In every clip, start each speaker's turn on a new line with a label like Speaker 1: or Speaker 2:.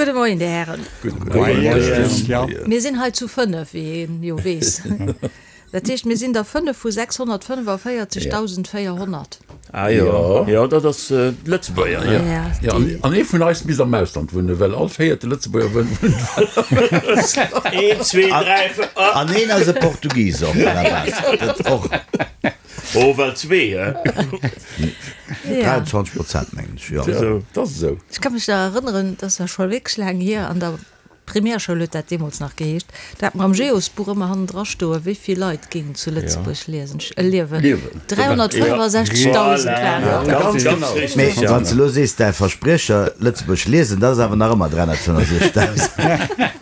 Speaker 1: Gudde Moien, Dir Hären.
Speaker 2: Gudde Moien.
Speaker 1: Mir sinn hei zu 5, wéi een jo weess. Dat heescht, mir sinn der 5 vu 645.400.
Speaker 2: Ah jo, jo, dat ass d'Lëtzebuerger, jo.
Speaker 1: Jo,
Speaker 3: an ee vun eis misst am Ausland wunnen, well all véierte Lëtzebuerger wunnt am
Speaker 2: Ausland. Een, zwee, dräi, véier, ah.
Speaker 4: An een ass e Portugis och, à la base. Dat och.
Speaker 2: Oh, well zwee, hä?
Speaker 4: 23 Prozent, mengen ech, jo.
Speaker 3: Dat ass esou.
Speaker 1: Ech ka mech nach erënneren, dat ass ja scho wierklech laang hier, an der Primärschoul huet dat deemools nach geheescht, do hat mer am Geosbuch ëmmer hannendra stoen, wéi vill Leit géingen zu Lëtzebuerg liesen, liewen. 365.000 waren et der.
Speaker 2: Ganz genau.
Speaker 4: Mee wann s de elo sees, däi Verspriecher, Lëtzebuerg liesen, dat ass awer nach ëmmer 365.000.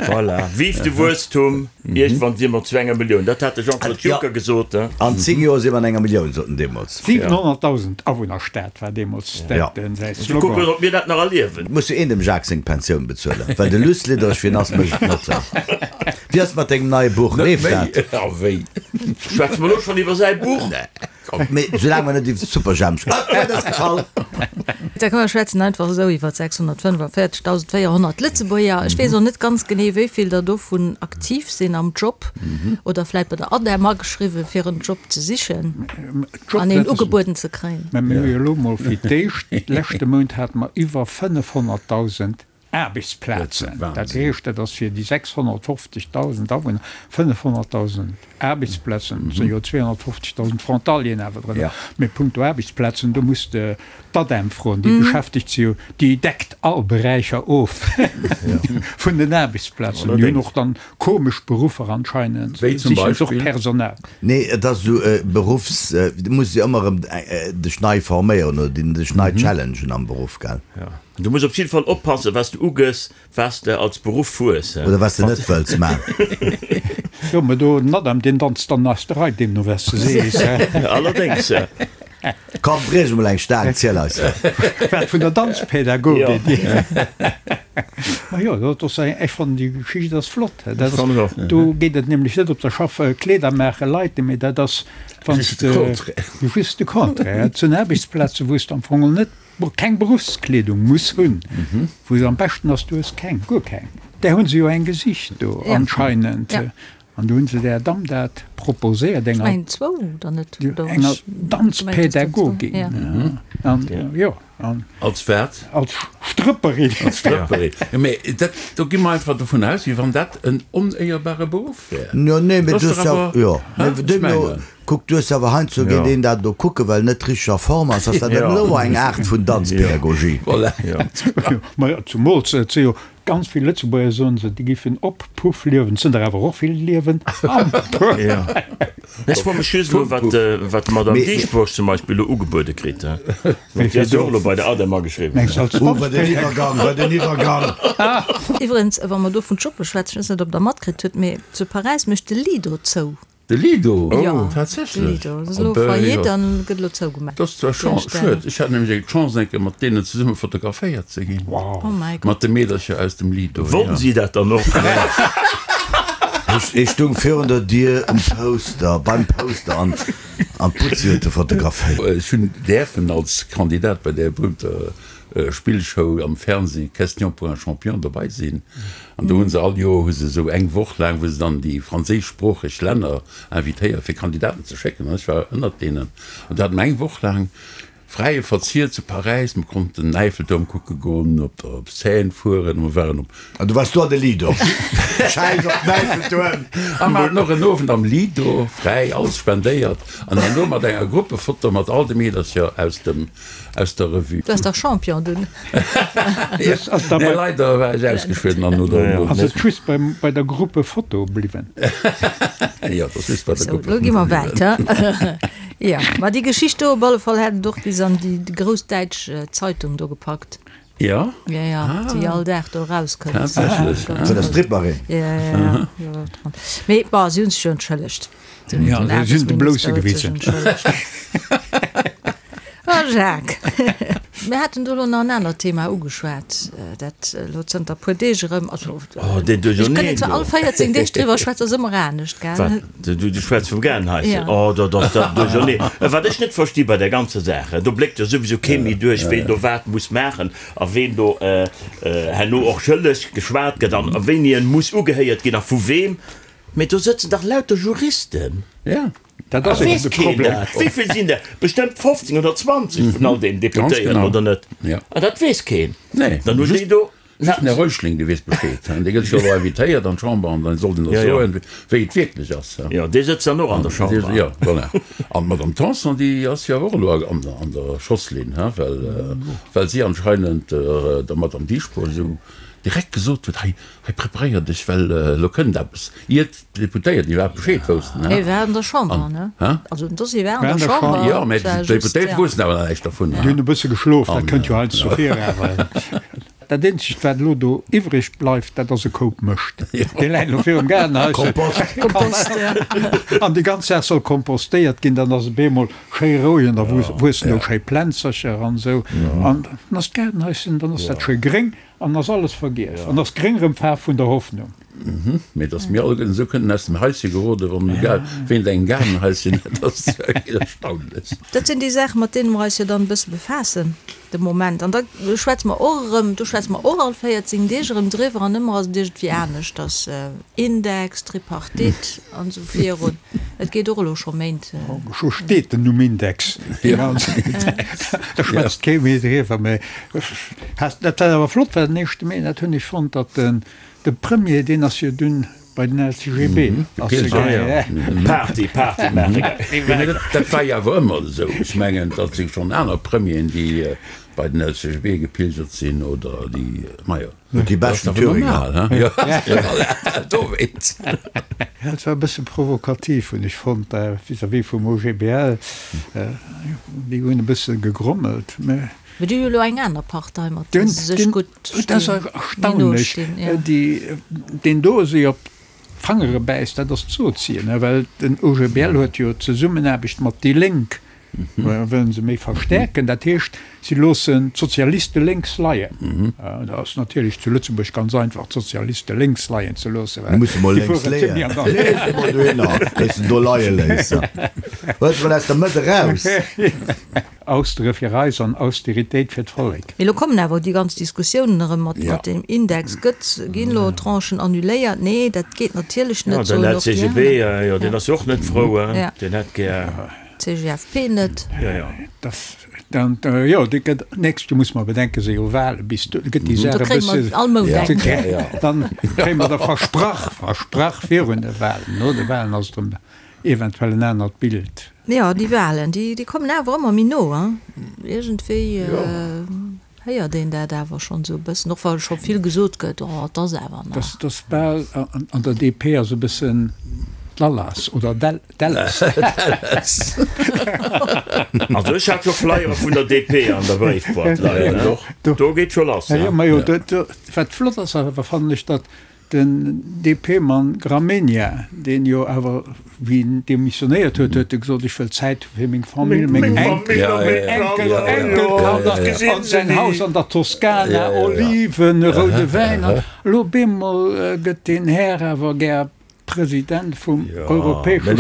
Speaker 2: Voilà. Vive de Wuesstum, iergendwann si mer zu enger Millioun. Dat hat de Jean-Claude Juncker gesot.
Speaker 4: An 10 Joer si mer an enger Millioun, sot en deemools.
Speaker 5: 700.000 Awunnerstad war deemools dat säi
Speaker 2: Slogan. Kucken, ob mir dat nach erliewen.
Speaker 4: Et muss jo een dem Jacques seng Pensioun bezuelen, well de Luss Liddereg wien ass, mécht et net. Wéi ass et mat dengem neie Buch?
Speaker 3: Net
Speaker 4: Leeft
Speaker 3: méi,
Speaker 4: dat?
Speaker 3: a wéi?
Speaker 2: Schwätze mer elo schonn iwwer säi Buch?
Speaker 4: Mee soulaang mer net iwwer Superjhemp schwätzen. Ah, d'Wuert ass gefall!
Speaker 1: Da komm mer schwätzen einfach esou iwwer 645.400 Lëtzebuerger. Ech weess och net ganz genee, wéi vill der dovun aktiv sinn am Job oder vläit bei der ADEM ageschriwwen, fir en Job ze sichen an een ugebueden ze kréien.
Speaker 5: Mä mir hu jo elo mol fir d'éischt, leschte Mount hate mer iwwer 500.000 Aarbechtsplazen. Dat heescht, dat ass fir déi 650.000 Awunner 500.000 Aarbechtsplazen. Et sinn jo 250.000 Frontalieren awer drënner. Mee punkto Aarbechtsplazen, do muss de d'ADEM froen, déi beschäftegt se jo, déi deckt all Beräicher of vun den Aarbechtsplazen. Déi hunn och dann komesch Beruffer anscheinend,
Speaker 3: Wéi zum
Speaker 5: sichen se och
Speaker 3: Beispill?
Speaker 5: Personal.
Speaker 4: Nee, et ass esou e Beruffs, du muss jo ëmmer erëm dech nei forméieren oder dech nei challengen am Beruff, gell?
Speaker 2: Du muss op jidde Fall oppassen, wat s de ugëss, wat s de als Beruff hues.
Speaker 4: Oder wat s de net wëlls man.
Speaker 5: Jo, mä do, den Adam, deen danzt dann aus der Rei, deemno wat s de sees.
Speaker 2: Allerdéngs.
Speaker 4: Komm, briech emol eng Staang, ziel eis dat.
Speaker 5: Wat, vun der Danzpädagogin? Ma jo, dat ass eng, ech fannen déi Geschicht ass flott. Dat ass, do geet et nämlech net op der Schaff Kleeder maache Leit, mee dat ass, wann s de, just de Contraire, et sinn Aarbechtsplazen, wou s de am Fong net keng Beruffskleedung muss hunn, wou se am beschten ass, du hues keng, guer keng. Där hu se jo eng gesicht do anscheinend. An do hu se där Damm dat proposéiert, enger enger Danzpädagogin. An jo, an.
Speaker 3: Als wat?
Speaker 5: Als Strëpperin.
Speaker 3: Als Strëpperin. Jo, mee dat, do gi mer einfach dovun aus, wéi wann dat en onéierbare Beruff wär.
Speaker 4: Jo, nee, mee
Speaker 3: Dat
Speaker 4: du
Speaker 3: ass
Speaker 4: hues
Speaker 3: dach
Speaker 4: jo,
Speaker 3: awer,
Speaker 4: jo,
Speaker 3: hä?
Speaker 4: mee
Speaker 3: Ech
Speaker 4: deemno,
Speaker 3: mengen.
Speaker 4: kuck, du hues awer heiansdo geet een dat elo kucken, well en net richteg a Form ass, ass dat
Speaker 2: Jo.
Speaker 4: elo eng Aart vun Danzpädagogie.
Speaker 3: Voilà.
Speaker 2: Jo.
Speaker 5: Ma jo, zumools, et si jo Ganz vill Lëtzebuerger soen se, déi giffen op Puff liewen. Et sinn der awer och vill, déi liewen am Puff.
Speaker 2: Jo. Ech froe mech just elo, wat, wat d'Madame Dieschbourg zum Beispill elo ugebuede kritt. Déi ass jo och elo bei der ADEM ageschriwwen.
Speaker 5: Mengs du als
Speaker 4: Oh, wat en Iwwergang, wat en Iwwergang!
Speaker 1: Iwwerens, wa mer do vun Joppe schwätzen, ech weess net, ob Der matkritt hutt, mee zu Paräis mécht de Lido zou.
Speaker 3: De Lido?
Speaker 1: Jo,
Speaker 3: Tatsächlech?
Speaker 1: de Lido. Ass elo Faillite an gëtt elo zougemaach.
Speaker 3: Dat ass zwar schued. Ech hat nämlech eng Chance eng Kéier mat deenen zesumme fotograféiert ze ginn.
Speaker 1: Oh mäi Gott.
Speaker 3: Mat de Meedercher aus dem Lido, jo.
Speaker 2: Wollten si dat dann och?
Speaker 4: Ech stung virun der Dier um Poster, beim Poster an an d'Butzi huet e fotograféiert.
Speaker 3: Ech hunn däerfen als Kandidat bei där berühmter Spillshow am Fernseh Question pour un champion dobei sinn. An do hu se all Joer hu se esou eng Woch laang, wou se dann déi franséischsproocheg Länner invitéieren, fir Kandidaten ze schécken. An ech war ënnert deenen. An do hate mer eng Woch laang fräie Verzier zu Paräis. Mer konnten den Äiffeltuerm kucke goen, op der Seine fueren. Mer waren op.
Speaker 4: An du waars do an de Lido. Schäiss op den Äiffeltuerm!
Speaker 3: A mer haten och en Owend am Lido, fräi, alles spendéiert. An herno mat enger Gruppefoto mat all de Meedercher aus dem. Aus der Revue.
Speaker 1: Du waars dach Champion dunn.
Speaker 3: Nee, leider war ech ausgeschwidden an no der.
Speaker 5: Ass et just bei der Gruppefoto bliwwen?
Speaker 3: Jo, et ass just bei der
Speaker 1: Sou,
Speaker 3: Gruppefoto
Speaker 1: lo gi mer
Speaker 3: bliwwen.
Speaker 1: wäit, he? Jo, ma déi Geschicht do op alle Fall hätt et och bis an déi grouss däitsch Zeitung do gepackt.
Speaker 3: Jo?
Speaker 1: Jo, jo, déi all Dag do erauskënnt.
Speaker 3: Tatsächlech?
Speaker 4: Vun der Stripperin?
Speaker 1: Jo, jo, jo. Mee bon, si hunn sech jo entschëllegt.
Speaker 5: Ja, si hunn de Blousse gewisen.
Speaker 1: Ah. Jacques, mir haten do elo nach en anert Thema ugeschwat, dat elo zënter e puer Deeg erëm, also
Speaker 2: Oh, deen
Speaker 1: ech kënnt
Speaker 2: Duercherneen
Speaker 1: zwar
Speaker 2: do.
Speaker 1: all 14 Deeg driwwer schwätzen, ass ëmmer anescht, gell?
Speaker 2: Wat? Du, du schwätz vum Gaardenhaischen?
Speaker 1: Ja.
Speaker 2: Oh, dat ass dat Duercherneen. Wat ech net versti bei där ganzer Saach, do bléckt jo souwisou kee méi duerch, ween do wat muss maachen a ween do herno och schëlleg geschwat gëtt an wéini en muss ugehéiert ginn a vu weem. Mee do sëtzen dach lauter Juristen.
Speaker 3: Ja.
Speaker 5: Dat ass eben de Problem.
Speaker 2: Wéi vill sinn der? Bestëmmt 15 oder 20 vun all deenen Deputéierten, oder net? An dat weess keen.
Speaker 3: Nee.
Speaker 2: Dann hunn déi do.
Speaker 3: Just den Här Reuschling, dee weess Bescheed. Dee gëtt jo elo invitéiert an d'Chamber an dann soll en der soen, wéi et wierklech ass.
Speaker 2: Jo, dee sëtzt dann och an der Chamber.
Speaker 3: Jo, voilà. An d'Madame Tanson, déi ass jo och elo an der Schosslinn, well, well si anscheinend der Madame Dieschbourg esou direkt gesot huet, hei, hei preparéier dech, well elo kënnt eppes. Iert d'Deputéierten iwwerhaapt Bescheed woussten.
Speaker 1: Hie war an der Chamber, ne? Also den Dossier war an der Chamber.
Speaker 3: Jo, mä d'Deputéierte woussten awer nach näischt dervun.
Speaker 5: Déi hunn e bësse geschlof, dat kënnt jo heiansdo vir. Awer dat eenzegt, wat elo do iwwreg bleift, dat ass e Koup Mëscht. Dee läit elo virum Gaardenhaischen.
Speaker 4: Kompost.
Speaker 1: Kompost, ja.
Speaker 5: An déi ganz Saach soll kompostéiert ginn, dann ass et bemol schéi roueg an da wuessen do schéi Plänzercher an esou. An dann ass d'Gaardenhaischen, dann ass dat schéi gréng. An ass alles vergiess. An ass gréng rëm d'Faarf vun der Hoffnung.
Speaker 3: Mee dass mir alleguerten esou kënnen aus dem Haische geroden, wann egal ween engem Gaardenhaischen huet, ass wierklech erstaunlech.
Speaker 1: Dat sinn déi Saachen, mat deene mer eis jo dann e bësse befaassen de Moment. An da schwätze mer och erëm, do schwätze mer och all 14 Deeg erëm driwwer an ëmmer ass et iergendwéi aneschters, Index, Tripartite an esou virun. Et geet och elo scho Méint.
Speaker 5: Scho steet den Numm Index. Da schwätzt kee méi driwwer. Mee dat wat awer flott war den éischte Mee, dat hunn ech fonnt, datt de Premier, deen ass jo dunn bei den LCGB ass e gaangen.
Speaker 2: Party, Party maache gaangen.
Speaker 3: Dat war jo awer ëmmer esou. Ech mengen, dat si schonn aner Premieren, déi bei den LCGB gepilgert sinn oder déi, majo.
Speaker 4: Huet déi beschten Thüringer.
Speaker 3: Dowéinst.
Speaker 5: Ja, et war e bësse provokativ, hunn ech fonnt, vis-à-vis vum OGBL. Déi hunn e bësse gegrommelt, mä.
Speaker 1: Mee déi hu jo elo eng aner Partei, mat där se sech gutt
Speaker 5: Dat ass erstaunlech. Deen do esou op d'Fangere bäisst, dat ass d'Sozien, well den OGBL huet jo d'Zesummenaarbecht mat déi Lénk Wëllen se méi verstärken. Dat heescht, si loossen d'Sozialiste lénks leien. Dat ass natierlech zu Lëtzebuerg ganz einfach, d'Sozialiste lénks leien ze loossen, well
Speaker 4: Muss emol
Speaker 5: déi
Speaker 4: lénks
Speaker 5: fueren
Speaker 4: leeën.
Speaker 5: zimlech an der.
Speaker 4: Lees emol dohinner, wéi s de do leie léiss. Huel se mol aus der Mëtt eraus.
Speaker 5: Austere fir eis an Austeritéit fir d'Vollek.
Speaker 1: Mee lo kommen awer déi ganz Diskussiounen erëm mat mat deem Index. Gëtt, ginn elo Tranchen annuléiert? Nee, dat geet natierlech
Speaker 2: Ja,
Speaker 1: net,
Speaker 2: den
Speaker 1: soen och déi
Speaker 2: LCGB,
Speaker 1: aner.
Speaker 2: jo, deen ass jo och net frou,
Speaker 1: Ja.
Speaker 2: deen hätt gär.
Speaker 1: CGFP net.
Speaker 2: Jo, jo.
Speaker 5: Das, dann, jo, déi gëtt, nächst Joer muss mer bedenken, si jo Wahlen, bis do gëtt déi
Speaker 1: Do
Speaker 5: Saach e
Speaker 1: kréie mer
Speaker 5: bësse.
Speaker 1: all Mount eng.
Speaker 5: Dann kréie mer der versprach, versprach virun de Wahlen. No de Wahlen ass et erëm eventuell en anert Bild.
Speaker 1: Jo, déi Wahlen, déi, déi kommen awer ëmmer méi no, hein. Iergendwéi héiert een dat awer schonn esou e bëssen, och wa scho vill gesot gëtt, oh, et ass awer nach.
Speaker 5: Dass, dass bal an der DP ass e bëssen d'Lallas oder Dallas.
Speaker 2: Also ech hat scho Flyere vun der DP an der Bréifboîte leien, ne? Do geet scho lass,
Speaker 5: ne? Majo, wat flott ass awer, fannen ech, datt den DP-Mann Gramegna, deen jo awer, wéi en demissionéiert huet, huet e gesot, ech wëll Zäit hu fir meng Famill, meng Enkel, Enkelkanner an säin Haus an der Toskana, Oliven, roude Wäin. An elo bemol gëtt deen Här awer gär President vum europäesche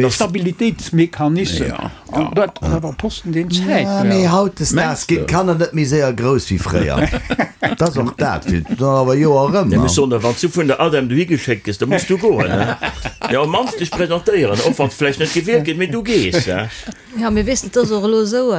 Speaker 5: Stabilitéitsmechanism. An dat ass awer e Posten, deen Zäit
Speaker 4: Ja, mee
Speaker 5: brauch.
Speaker 4: hautdesdaags ginn d'Kanner net méi séier grouss wéi fréier. Dat ass och dat, vill dann awer Joer erëm.
Speaker 2: Nee, mee soen der, wann s du vun der ADEM dohi geschéckt gëss, da muss du goen, he? Jo, op mannst dech presentéieren, och wann s vläicht net gewielt gëtt, mee du gees, he?
Speaker 1: Jo, mee weess de, et ass och elo esou,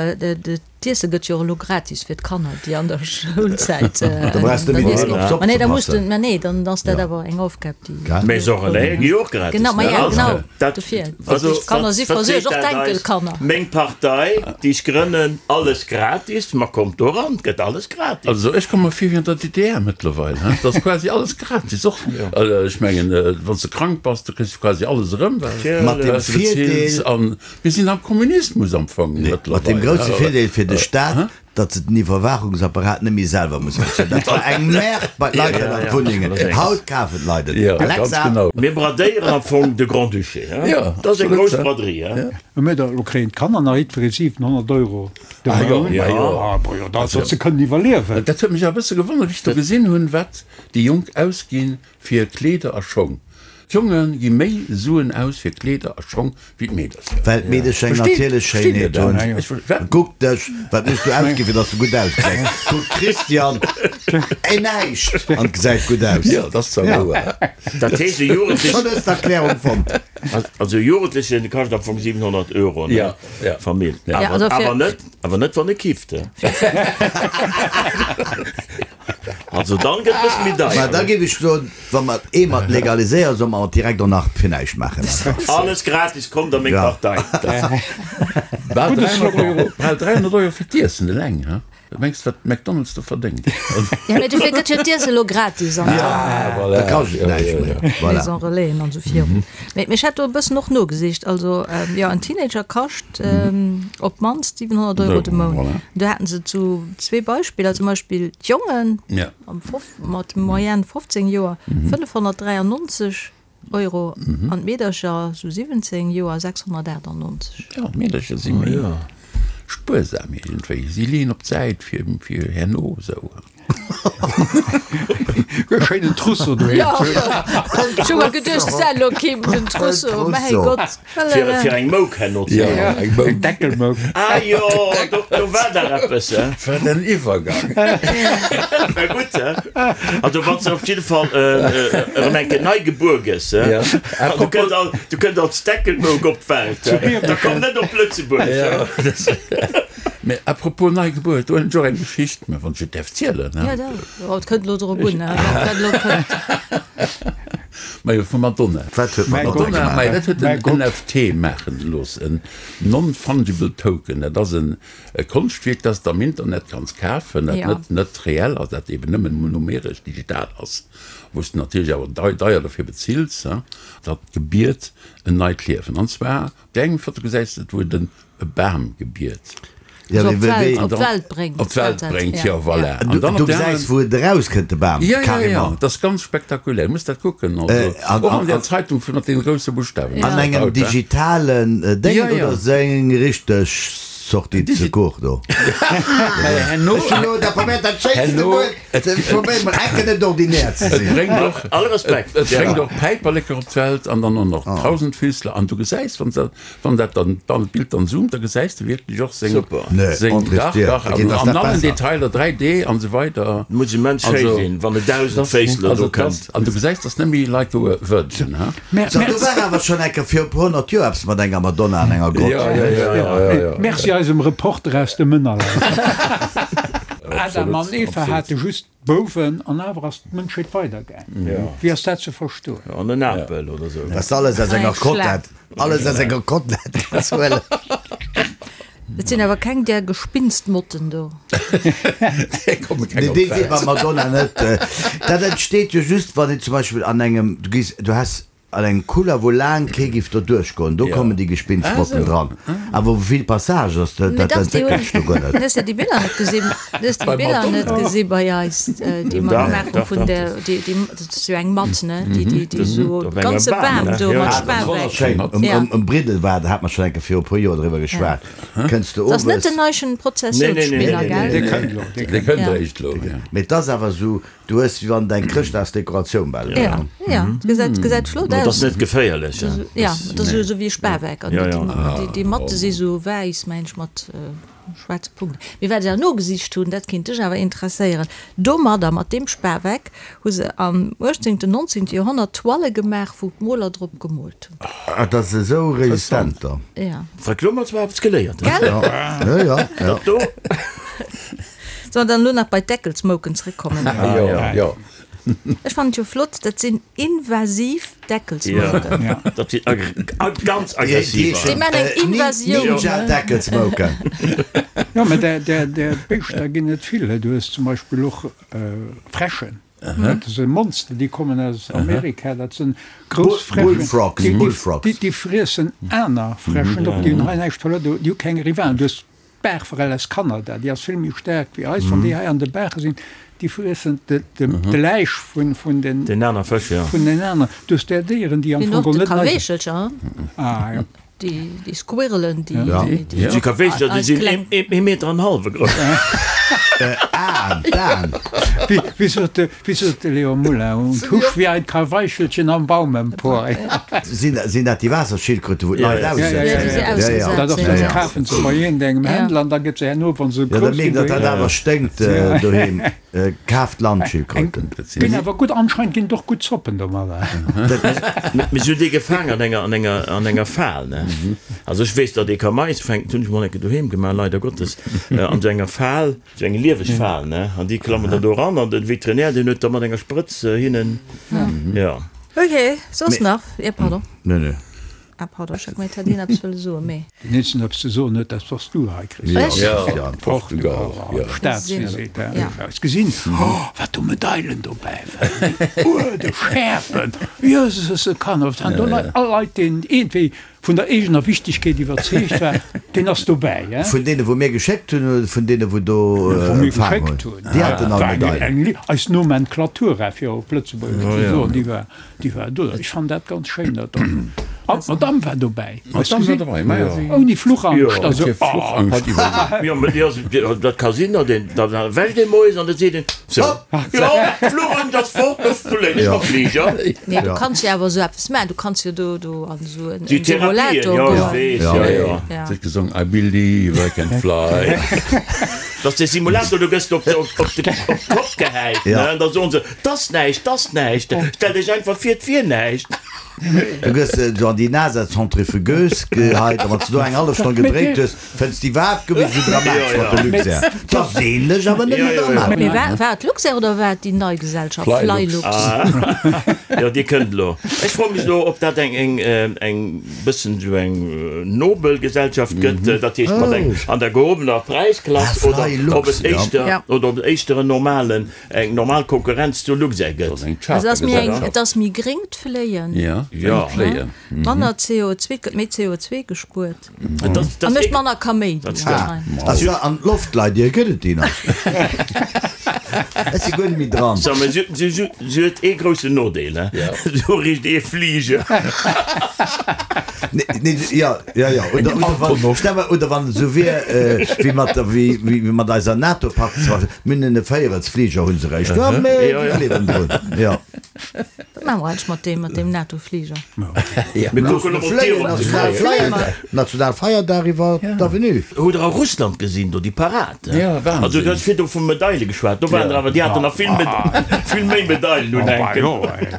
Speaker 1: D'Iesse gëtt jo och elo gratis fir d'Kanner, déi an der Schoulzäit
Speaker 4: Da brauchs de net méi op d'Zopp
Speaker 1: Ma nee,
Speaker 4: ze
Speaker 1: da muss de,
Speaker 4: passen.
Speaker 1: ma nee, dann ass dat awer eng Aufgab, déi.
Speaker 4: Gell?
Speaker 2: Mee Sorelé gi jo och gratis,
Speaker 1: Genau, ma
Speaker 2: ne?
Speaker 1: ja,
Speaker 2: Also,
Speaker 1: genau,
Speaker 2: dat,
Speaker 1: dofir.
Speaker 2: also,
Speaker 1: D'Kanner
Speaker 2: wat,
Speaker 1: si
Speaker 2: wat
Speaker 1: versuergt,
Speaker 2: seet
Speaker 1: och
Speaker 2: dat eis?
Speaker 1: d'Enkelkanner.
Speaker 2: Meng Partei, déi ech grënnen, alles gratis, ma kommt do eran, 't gëtt alles gratis.
Speaker 3: Also ech komme mer vir wéi an der DDR mëttlerweil, he? Et ass quasi alles gratis, och, ech mengen, wann s de krank bass, du kriss quasi alles erëm, well
Speaker 4: Mat dem
Speaker 3: s de beziils
Speaker 4: Virdeel.
Speaker 3: an Mir sinn am Kommunismus am Fong
Speaker 4: Mat deem
Speaker 3: mëttlerweil.
Speaker 4: grousse Virdeel fir de Staat,
Speaker 3: Hä?
Speaker 4: Datt se den Iwwerwaachungsapparat net méi selwer musse bezuelen. Dat war eng Merde bei d'Leit an d'Wunnengen. Haut kafen d'Leit et. Alexa.
Speaker 2: Mir bradéieren am Fong de Grand-Duché. Dat ass eng grouss Braderie.
Speaker 5: Mä da lo kréien d'Kanner nach jiddweree 700 Euro de Mount. Datt se kënnen iwwerliewen.
Speaker 3: Dat huet mech awer e bësse gewonnert, wéi ech do gesinn hunn, wat déi Jonk ausginn fir Kleeder a Schong. D'Jonge gi méi Suen aus fir Kleeder a Schong wéi d'Meedercher.
Speaker 4: Well d'Meedecher eng natierlech Schéinheet hunn. Kuck dech, wat muss du ausginn, fir dass du gutt ausgesäis? Kuck d'Christiane, ey näischt an gesäit gutt aus.
Speaker 3: Jo, dat ass zwar wouer.
Speaker 2: Dat heescht e Jugendlechen.
Speaker 4: Schonn hues d'Erklärung fonnt.
Speaker 2: Also e Jugendlechen kascht am Fong 700 Euro, ne? Famill. Awer net, awer net wann e kifft. Also dann gëtt bëssen méi deier.
Speaker 4: Mä da géif ech soen, wa mer et eemol legaliséieren, solle mer et direkt och nach fir näischt maachen.
Speaker 2: Alles gratis, kommt a meng Partei.
Speaker 3: Bal 300 Euro, bal 300 Euro fir d'Iessen eleng, he? Wat mengs de, wat McDonald's do verdéngt?
Speaker 1: Jo, mä dofir gëtt jo d'Iesse elo gratis an
Speaker 4: der. Da kascht et näischt méi. Voilà.
Speaker 1: Maison Relaisen an esou virun. Mä ech hat do e bëssen och nogesicht. Also, jo, en Teenager kascht op d'mannst 700 Euro de Mount. Do haten se zu zwee Beispiller, zum Beispill d'Jongen mat Moyenne 15 Joer 593 Euro an d'Meedercher sou 17 Joer 698.
Speaker 3: Jo, d'Meedercher si méi spuersam iergendwéi. Si leeën op d'Säit fir herno esou.
Speaker 5: E schéinen Trousseau doheem
Speaker 1: ze hunn. Ech hu mer geduecht, s elo kéim den Trousseau, mäi Gott.
Speaker 2: Fir eng Mouk herno ze
Speaker 3: hunn. Ja, eng Mouk.
Speaker 5: Eng Deckelmouk.
Speaker 2: Ah jo, do war dach eppes, he?
Speaker 3: Wat en Iwwergang.
Speaker 2: War gutt, he? Also wann s de op jidde Fall erëm eng Kéier nei gebuer gëss, he? Du kënns al, du kënns als Deckelmouk op d'Welt, he? Da komm net op Lëtzebuerg, he?
Speaker 3: Mä à propos Neigebuert, do hunn ech och eng Geschicht, mä wann ech et däerf zielen,
Speaker 1: he? Jo, da, oh, et kënnt elo drop un, he, wat dat elo kënnt.
Speaker 3: Majo, vu Madonna.
Speaker 4: Wat huet Madonna
Speaker 3: Madonna,
Speaker 4: gemaach?
Speaker 3: Majo, dat huet en NFT maachen gelooss, en Non-Fungible Token. Dat ass en e Konschtwierk, dat s de am Internet kanns kafen, dat net, net reell ass, dat eben nëmmen numeresch, digital ass, wou s de natierlech awer dei, deier dofir bezills, he. Dat gebiert en neit Liewen. An zwar, op där enger Foto gesäis de et, wou et en E Bam gebiert.
Speaker 1: Ja, op d'Welt, op d'Welt bréngt.
Speaker 3: Op d'Welt bréngt, jo, voilà.
Speaker 4: An dann op der gesäis, wou et erauskënnt, de Bam,
Speaker 3: Ja, ja, ja, dat ass ganz spektakulär. Du muss dat kucken. Also, och an der Zeitung mat deene grousse Buschtawen.
Speaker 4: An engem digitalen Déngen oder seng richteg Sortie de secours do? Ech hunn elo da probéiert, dat schéinste Wuert ze probéieren, mer enken net ordinär ze
Speaker 3: sinn. Et bréngt och, All Respekt, et bréngt och Päiperleker op d'Welt an dann och nach Tausendfüßler. An du gesäis, wann se Wann dat dann dann d'Bild dann zoomt, da gesäis de wierklech och seng
Speaker 2: Super.
Speaker 4: Nee,
Speaker 3: seng
Speaker 4: André
Speaker 3: dach
Speaker 4: Stier,
Speaker 3: dach
Speaker 4: okay,
Speaker 3: an
Speaker 4: dass
Speaker 3: an
Speaker 4: dat
Speaker 3: allen
Speaker 4: besser.
Speaker 3: Detailer 3D an esou weider.
Speaker 2: Muss immens schéi
Speaker 3: Also
Speaker 2: sinn, wann e Dausendféissler
Speaker 3: also
Speaker 2: do
Speaker 3: et ass
Speaker 2: kënnt.
Speaker 3: an du gesäis, dass net méi like a virgin, ha?
Speaker 4: So, do war awer schonn eng Kéier vir e puer 100 Joer eppes mat enger Madonna an enger Grott.
Speaker 3: Ja, ja, ja, ja, ja, ja.
Speaker 5: Merci eisem Reporter aus dem Ënnerland. Adam an Eva hate just Bouwen, an awer ass d'Mënschheet weidergaang. Wéi ass dat ze verstoen?
Speaker 2: An en Apel oder sou.
Speaker 4: Dass alles aus enger Kotlett, alles aus enger Kotlett kanns huelen.
Speaker 1: Et sinn awer keng där Gespinstmotten do.
Speaker 3: Déi komme keng
Speaker 4: Nee,
Speaker 3: op
Speaker 4: déi si
Speaker 3: d'Welt.
Speaker 4: bei Madonna net. Dat entsteet jo just, wann een zum Beispill an engem, du gees, du has An engem Couloir wou laang kee giff do duerchgoen, do kommen déi Gespinstmotten dran. Awer wou vill Passage ass, dat entwéckelt sech do guer net.
Speaker 1: Hues de déi Biller net gesinn? Hues de déi Biller net gesi bei eis, déi mer gemaach hu vun der, déi, déi, dat ass jo eng Matt, ne, déi, déi, déi esou de ganze Bam do mat Spaweck.
Speaker 4: Wonnerschéin. Um Briddel war, da hat mer schonn eng Kéier viru e puer Joer driwwer geschwat, kënns de
Speaker 1: Dat ass net
Speaker 4: owes.
Speaker 1: den neischen Prozessionsspinner, gell?
Speaker 5: Dee kënnt elo,
Speaker 3: dee kënnt eréischt elo, jo.
Speaker 4: Mee et ass awer esou, Du hues wéi wann et eng Chrëschtdagsdekoratioun bal
Speaker 1: wier. Ja, ja, et gesäit, gesäit flott
Speaker 2: Dat ass
Speaker 1: aus.
Speaker 2: net geféierlech, hè?
Speaker 1: Ja, et ass esou wéi e Spaweck. An déi, déi Matte si sou wäiss, mengen ech, mat schwaarze Punkten. Mee wat ech awer nogesicht hunn, dat kéint dech awer interesséieren, Domadder, mat deem Spaweck, hu se am uechtzéngten, nonzéngte Joerhonnert Toile gemaach, wou d'Moler drop gemoolt hunn.
Speaker 4: Ah, dat ass esou resistent da.
Speaker 1: Ja.
Speaker 2: Wat elo mat zwar eppes geléiert,
Speaker 1: Gell?
Speaker 4: Ja, ja, ja.
Speaker 2: Dat do.
Speaker 1: Sollen dann elo nach bei d'Deckelsmouken zréckkommen?
Speaker 3: Jo, jo.
Speaker 1: Ech fannen et jo flott, dat sinn invasiv Deckelsmouken.
Speaker 2: Jo, dat sinn ganz aggressiv.
Speaker 1: Déi man eng Invasioun.
Speaker 4: Ninja-Deckelsmouken.
Speaker 5: Jo, mä där Béischter ginn et vill. Du hues zum Beispill och Fräschen. Dat si Monster, déi kommen aus Amerika. Dat sinn grouss Fräschen. Déi friessen aner Fräschen op. Déi hunn hei näischt verluer. Déi hu keng Rivalen. Du hues. D'Baachforell aus Kanada, déi ass vill méi staark wéi eis. Wann déi hei an de Baache sinn, déi friessen de Läich vun den
Speaker 2: Den aner Fësch, jo.
Speaker 5: Vun den aneren. Du hues där Déieren, déi am
Speaker 1: Fong
Speaker 5: och
Speaker 1: geholl
Speaker 5: net
Speaker 1: nei.
Speaker 5: Kaweechelcher,
Speaker 1: Ah, jo. Déi, déi Squirrelen, déi,
Speaker 4: Ja.
Speaker 1: déi, déi
Speaker 2: Déi Kaweechelcher, déi sinn
Speaker 1: kleng.
Speaker 2: ee, ee Meter an hallwe grouss.
Speaker 4: Aen, d'Aen.
Speaker 5: Wéi, wéi sot de, wéi sot de Léon Moulin, und husch wie ein Kaweichelchen am Baum empor.
Speaker 4: Sinn, sinn dat déi Waasserschildkröte, wou d'Leit
Speaker 5: Ja, ja, ja, ja,
Speaker 4: aussetzen?
Speaker 5: ja,
Speaker 4: Ja, ja.
Speaker 5: Dat ass,
Speaker 4: Ja,
Speaker 5: dat
Speaker 4: ja.
Speaker 5: kafen se bei iergendengem Händler an da gëtt se herno, wa se
Speaker 4: Ja, da
Speaker 5: grouss
Speaker 4: mierkt,
Speaker 5: ginn,
Speaker 4: datt dat awer sténkt doheem. Kaaft Landschildkröten.
Speaker 5: Ginn awer gutt, anscheinend ginn et och gutt Zoppen domadder.
Speaker 2: Mee si hunn déi gefaang an enger, an enger, an enger Fal, ne? Also ech weess, datt ee ka Mais fänken, dat hunn ech mol eng Kéier doheem gemaach, leider Gottes, an esou enger Fal, esou eng lieweg Fal, ne? An déi klammen da do eran an de Veterinär, deen huet da mat enger Sprëtz hinnen, jo.
Speaker 1: Ok, soss nach? Jo, pardon.
Speaker 4: Nee, nee.
Speaker 1: Ah pardon, ech hat gemengt, hätt een eppes wëlle soen, mee.
Speaker 5: Deen eenzegen eppes ze soen huet, dat bass du hei, Christian.
Speaker 1: Ech?
Speaker 3: Ja, Portugal, ja.
Speaker 5: Staatsvisite,
Speaker 1: Ja.
Speaker 5: ja. Hues gesinn, oh, wat do Medailen dobäi waren, déi Uerde, Schäerpen, Jöses, e Kanner, wat waren do Leit, all Leit, deen iergendwéi vun der eegener Wichtigkeet iwwerzeegt war, deen ass dobäi, hein.
Speaker 4: Vun deene wou mir geschéckt hunn oder vun deene wou do
Speaker 5: Wou mir
Speaker 4: empfaang
Speaker 5: geschéckt
Speaker 4: hunn?
Speaker 5: hunn.
Speaker 4: Déi haten all
Speaker 5: War eng,
Speaker 4: Medailen.
Speaker 5: eng, eis Nomenklatura, fir op Lëtzebuergesch ze soen, déi war. Déi war do. Ech fannen dat ganz schéin, dat do. An d'Madame war dobäi.
Speaker 3: D'Madame war dobäi, ma ja.
Speaker 5: Ouni Fluchangst.
Speaker 3: Jo, huet hir Fluchangst iwwerlieft.
Speaker 2: Jo, mä déi ass, dat ka sinn, datt een, da wäscht ee moies an da seet een, sou, jo, d'Fluchangst ass fort, elo léien ech mam Fliger.
Speaker 1: Nee, du kanns jo awer esou eppes maachen. Du kanns jo do, do an esou en
Speaker 2: Déi Therapien,
Speaker 1: Simulator
Speaker 2: jo, ech
Speaker 1: goen.
Speaker 2: weess, jo, jo.
Speaker 1: Ja.
Speaker 3: Si huet gesongen, I believe I can fly.
Speaker 2: Dat ass dee Simulator, do gëss de op de, op de, op d'Kopp gehäit, ne, an da soen se, 't ass näischt, 't ass näischt, stell dech einfach vir, 't wier näischt.
Speaker 4: Du gëss esou an déi NASA-Centrifugeuse geheit a wann s de do eng hallef Stonn gedréit hues, fënns de iwwerhaapt guer méi esou dramatesch mat de Luxair. 't ass ähnlech, awer net méi dramatesch.
Speaker 1: Mee war, war et Luxair oder war et déi nei Gesellschaft Flylux?
Speaker 2: Jo, déi kënnt elo. Ech froe mech elo, ob dat eng, eng, eng bëssen esou eng nobel Gesellschaft gëtt, dat heescht mat eng an der gehobener Präisklass, oder ob et éischter, oder ob et éischter en normalen, Eng normal Konkurrenz zu Luxair gëtt.
Speaker 1: Also ass méi eng, et ass méi gréng d'Fléien.
Speaker 3: Ja, d'Fléien.
Speaker 1: Manner CO2, gëtt méi CO2 gespuert. A mécht manner Kaméidi.
Speaker 4: Also an d'Loftleidier gëtt et déi nach? Ech si guer net méi dran.
Speaker 2: So, mä si huet ee groussen Nodeel, Sou richt ee Fliger.
Speaker 4: Nee, jo, jo, jo. Oder, oder wann, stell mer, oder wann et esou wier, wéi mat der, wéi, wéi mat eiser NATO-Pakt, Mir hunn e Véierelsfliger hu se réischt. Jo, mee mir gleewen drun. Jo.
Speaker 1: Wat maache mer eigentlech mat deem, mat deem NATO-Fliger?
Speaker 2: Mir kucken op d'Dier op ze
Speaker 4: Fléien. National Feierdag iwwer d'Avenue.
Speaker 2: Hutt der a Russland gesinn do déi Parad?
Speaker 3: Ja, Wahnsinn.
Speaker 2: Also du hues virdu vu Medaile geschwat, do waren der awer, déi haten nach vill, vill méi Medailen unhänken.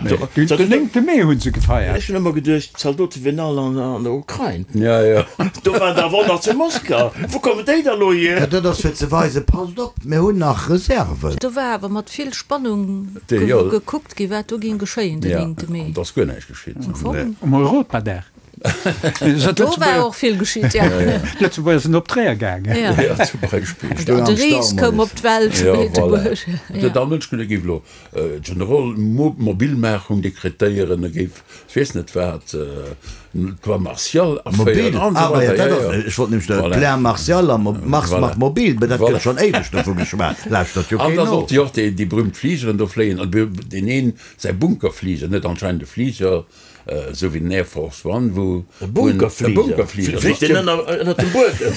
Speaker 5: Den néngte Mee hu se gefeiert.
Speaker 2: Ech hunn ëmmer geduecht, d'Zaldote wieren all an der Ukrain.
Speaker 3: Ja, ja.
Speaker 2: Do waren der awer och nach zu Moskau. Wou kommen déi da lo hier?
Speaker 4: Ja, dat ass fir ze weisen, passt op, mir hunn nach Reserven.
Speaker 1: Do war awer mat vill Spannung gekuckt gi wat do géing geschéien den néngte Mee.
Speaker 3: Ja, an et ass guer näischt geschitt.
Speaker 1: Am Fong.
Speaker 5: Um Europadag.
Speaker 1: Do war och vill geschitt, ja.
Speaker 5: D'Lëtzebuerger sinn op Tréier gaangen.
Speaker 1: Ja,
Speaker 3: zum Beispill.
Speaker 1: De Ries koum op d'Welt zu
Speaker 3: Ja, voilà.
Speaker 1: Beetebuerg.
Speaker 3: Et huet all Mënsch geduecht, e géif elo General Mobilmachung dekretéieren, e géif, ech weess net wat, d'Loi martiale
Speaker 4: Mobil,
Speaker 3: aféieren an esou
Speaker 4: ah ma ja,
Speaker 3: weider.
Speaker 4: dat
Speaker 3: Ja,
Speaker 4: ass,
Speaker 3: ja.
Speaker 4: ech wollt nämlech
Speaker 3: Voilà.
Speaker 4: Plein martial a Mars
Speaker 3: Voilà.
Speaker 4: macht mobil, mä dat
Speaker 3: Voilà.
Speaker 4: gëtt schonn éiweg dovu geschwat, lauschtert jo
Speaker 3: An
Speaker 4: keen
Speaker 3: da
Speaker 4: no.
Speaker 3: sollte jo och déi, déi berühmt Fligeren do fléien, an deen een säi Bunkerfliger, net anscheinend e Fliger, esou wéi den Air Force One, wou
Speaker 2: E Bunkerfliger?
Speaker 3: E Bunkerfliger.
Speaker 2: Fliegt deen ënner, ënner dem Buedem?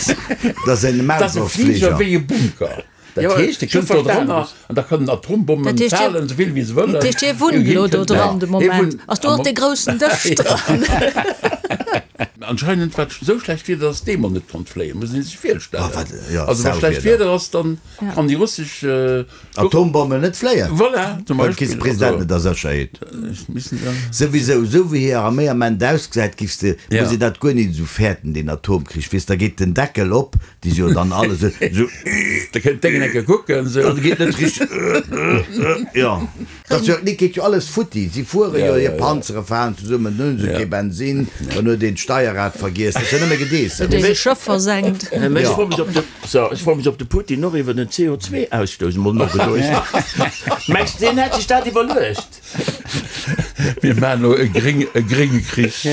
Speaker 4: Dat ass en
Speaker 3: Dat ass e Fliger
Speaker 4: Maulwurffliger.
Speaker 3: wéi e Bunker. Dat heescht, e kënnt do drënner an da kënnen Atombommen falen, esou vill wéi se wëllen.
Speaker 1: Dat heescht, hie wunnt elo do dran de Moment. Ass do och dee groussen Dësch dran?
Speaker 3: Anscheinend war et esou schlecht Wieder, datt dee mol net konnt fléien, muss ee sech virstellen.
Speaker 4: Also
Speaker 3: wa schlecht Wieder ass, dann kann déi russesch
Speaker 4: Atombommen net fléien.
Speaker 3: Voilà, zum
Speaker 4: Well kriss de
Speaker 3: Beispill.
Speaker 4: President net a Sécherheet. Souwisou, esou wéi hir Arméi am Ament ausgesäit, giffs de, muss ee dat guer nit esou fäerten, deen Atomkrich, weess, da geet den Deckel op, Déi si jo dann alle sou, sou.
Speaker 3: Da kënnt d'Déngen eng Kéier kucken, sou.
Speaker 4: Dat geet net richteg, jo. Dat ass jo, et geet jo alles futti. Si fuere jo, hir Panzere falen zesummen, dann hu se kee Bensin, dann huet een d'Steierrad vergiess. Dat ass jo nëmme Gedeessems.
Speaker 1: Huet een e Schëff versenkt.
Speaker 2: Mä ech froe mech, ob de, so, ech froe mech, ob de Putin och iwwer den CO2-Ausstouss emol nogeduecht huet. Mengs de, deen hätt sech dat iwwerluecht?
Speaker 3: Mir maachen elo e gréng, e grénge Krich.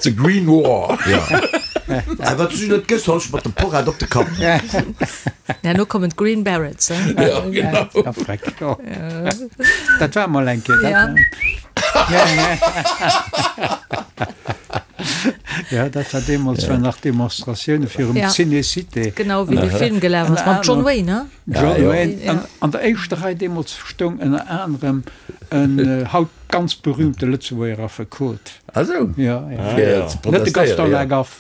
Speaker 3: The Green War.
Speaker 4: Ja. A wat du net gëss, hol ech mat dem Porrad op de Kapp.
Speaker 1: Herno kommen d'Green Berets, hein?
Speaker 3: Ja, genau.
Speaker 5: Ja, freck. Jo. Dat war mol eng Kéier.
Speaker 1: Ja.
Speaker 5: Ja, dat war deemools, war nach Demonstratioune virum
Speaker 1: Ja.
Speaker 5: Ciné-Cité.
Speaker 1: Genau, wéi de Film gelaf ass, mam John Wayne, hein?
Speaker 5: John
Speaker 3: Ja,
Speaker 5: Wayne.
Speaker 1: ja.
Speaker 5: An, an der éischter Rei deemools stoung ënner anerem en haut ganz berühmte Lëtzebuerger Affekot.
Speaker 3: Ah sou.
Speaker 5: Ja, ja.
Speaker 3: Fir
Speaker 2: ja.
Speaker 3: ze
Speaker 5: Net de Gaston
Speaker 3: protestéieren, ja.
Speaker 5: Lagaffe.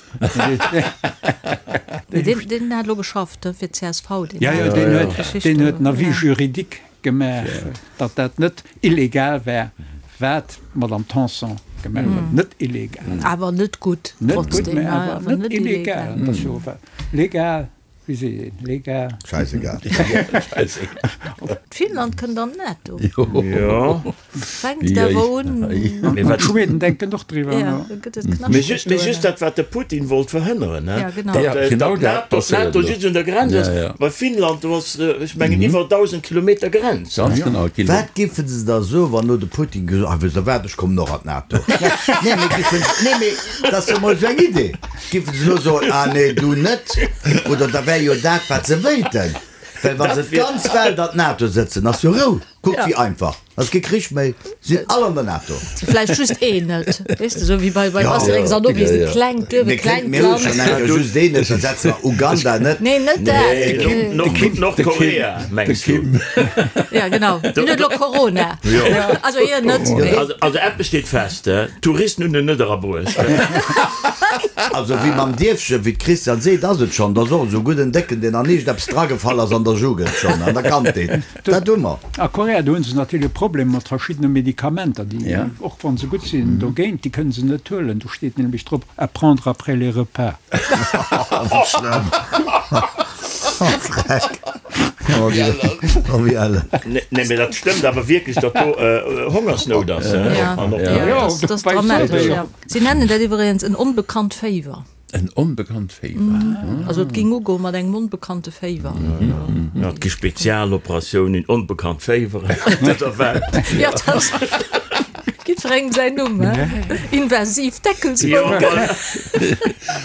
Speaker 1: Mee deen, deen hat elo geschafft, hein, fir d'CSV, deen
Speaker 5: Ja, ja,
Speaker 1: hat
Speaker 5: deen
Speaker 1: déi
Speaker 5: huet,
Speaker 1: Geschicht
Speaker 5: deen
Speaker 1: do,
Speaker 5: huet en Avis
Speaker 1: ja.
Speaker 5: juridique gemaach, datt dat net illegal war, wat d'Madame Tanson gemaach huet. Net illegal.
Speaker 1: Awer net gutt,
Speaker 5: Net gutt,
Speaker 1: trotzdem,
Speaker 5: mä
Speaker 1: ja,
Speaker 5: awer
Speaker 1: awer
Speaker 5: net
Speaker 1: net
Speaker 5: illegal.
Speaker 1: illegal.
Speaker 5: Dat ass jo legal. Wéi seet een? Legal?
Speaker 4: Scheißegal.
Speaker 1: Finnland kënnt an d'NATO.
Speaker 2: Jo.
Speaker 1: Fänkt awer un.
Speaker 2: Mee wat.
Speaker 5: D'Schweden denken och driwwer
Speaker 1: Ja,
Speaker 5: no.
Speaker 1: da gëtt et
Speaker 2: Mee
Speaker 1: knaschteg
Speaker 2: just, mee
Speaker 1: do
Speaker 2: just
Speaker 1: ënnen.
Speaker 2: dat, wat de Putin wollt verhënneren,
Speaker 1: Ja, genau.
Speaker 2: datt
Speaker 3: Ja, genau
Speaker 2: datt
Speaker 3: dat
Speaker 2: d'NATO,
Speaker 3: passéiert
Speaker 2: d'NATO
Speaker 3: elo.
Speaker 2: just un der Grenz
Speaker 3: Ja,
Speaker 2: ass.
Speaker 3: ja.
Speaker 2: Bei Finnland, do ass, ech mengen, iwwer 1.000 Kilometer Grenz.
Speaker 3: Ganz genau. Et ginn
Speaker 4: Wat giffen se da soen, wann elo de Putin gesot, ah, wësst Der wat, ech kommen och an d'NATO. Nee, mee giffen, nee, mee dat ass jo mol esou eng Idee. Giffen se elo soen, ah nee, du net, oder da wär jo dat, wat se wéilten. Well wa se d'ganz Welt an d'NATO sëtzen, ass jo Rou. Kuck wéi einfach, ass kee Krich méi, sinn all an der NATO.
Speaker 1: Vläicht just een net, weess de, esou wéi bei Asterix an Obelix, e klengt Duerf, e klengt
Speaker 4: Mir hu schonn
Speaker 1: Land.
Speaker 4: eng Kéier just een net, da setze mer Uganda net.
Speaker 1: Nee, net dat.
Speaker 2: Nordkorea, mengs du?
Speaker 1: Ja, genau, deen huet elo Corona. Also hien net, mee.
Speaker 2: Also eppes steet fest, D'Touristen hunn en net erabruecht.
Speaker 4: Also wéi mam Dierfchen, wéi d'Christiane seet, ass et schonn. Et ass och esou gutt en Décken, deen an iergendeppes dragefall ass an der Jugend schonn an der Kandheet. Dat hu mer.
Speaker 5: A Korea, do hu se natierlech e Problem mat verschiddene Medikamenter, déi, och wa se gutt sinn dogéint, déi kënne se net huelen. Do steet nämlech drop, à prendre après les repas.
Speaker 4: Wéi schlëmm. Oh Freck. Oh wéi ellen.
Speaker 2: Nee, mee dat stëmmt awer wierklech, datt do Hongersnout ass.
Speaker 1: Ja, dat ass dramatesch, ja. Si nennen dat iwweregens en onbekannt Féiwer.
Speaker 3: En onbekannt Féiwer.
Speaker 1: Also et ging ugoe mat engem onbekannte Féiwer.
Speaker 2: Jo, et gi Spezialoperatiounen, onbekannt Féiweren op dëser Welt.
Speaker 1: Jo, dat ass jiddwerengem säin Numm, he? Invasiv Deckelsbouken.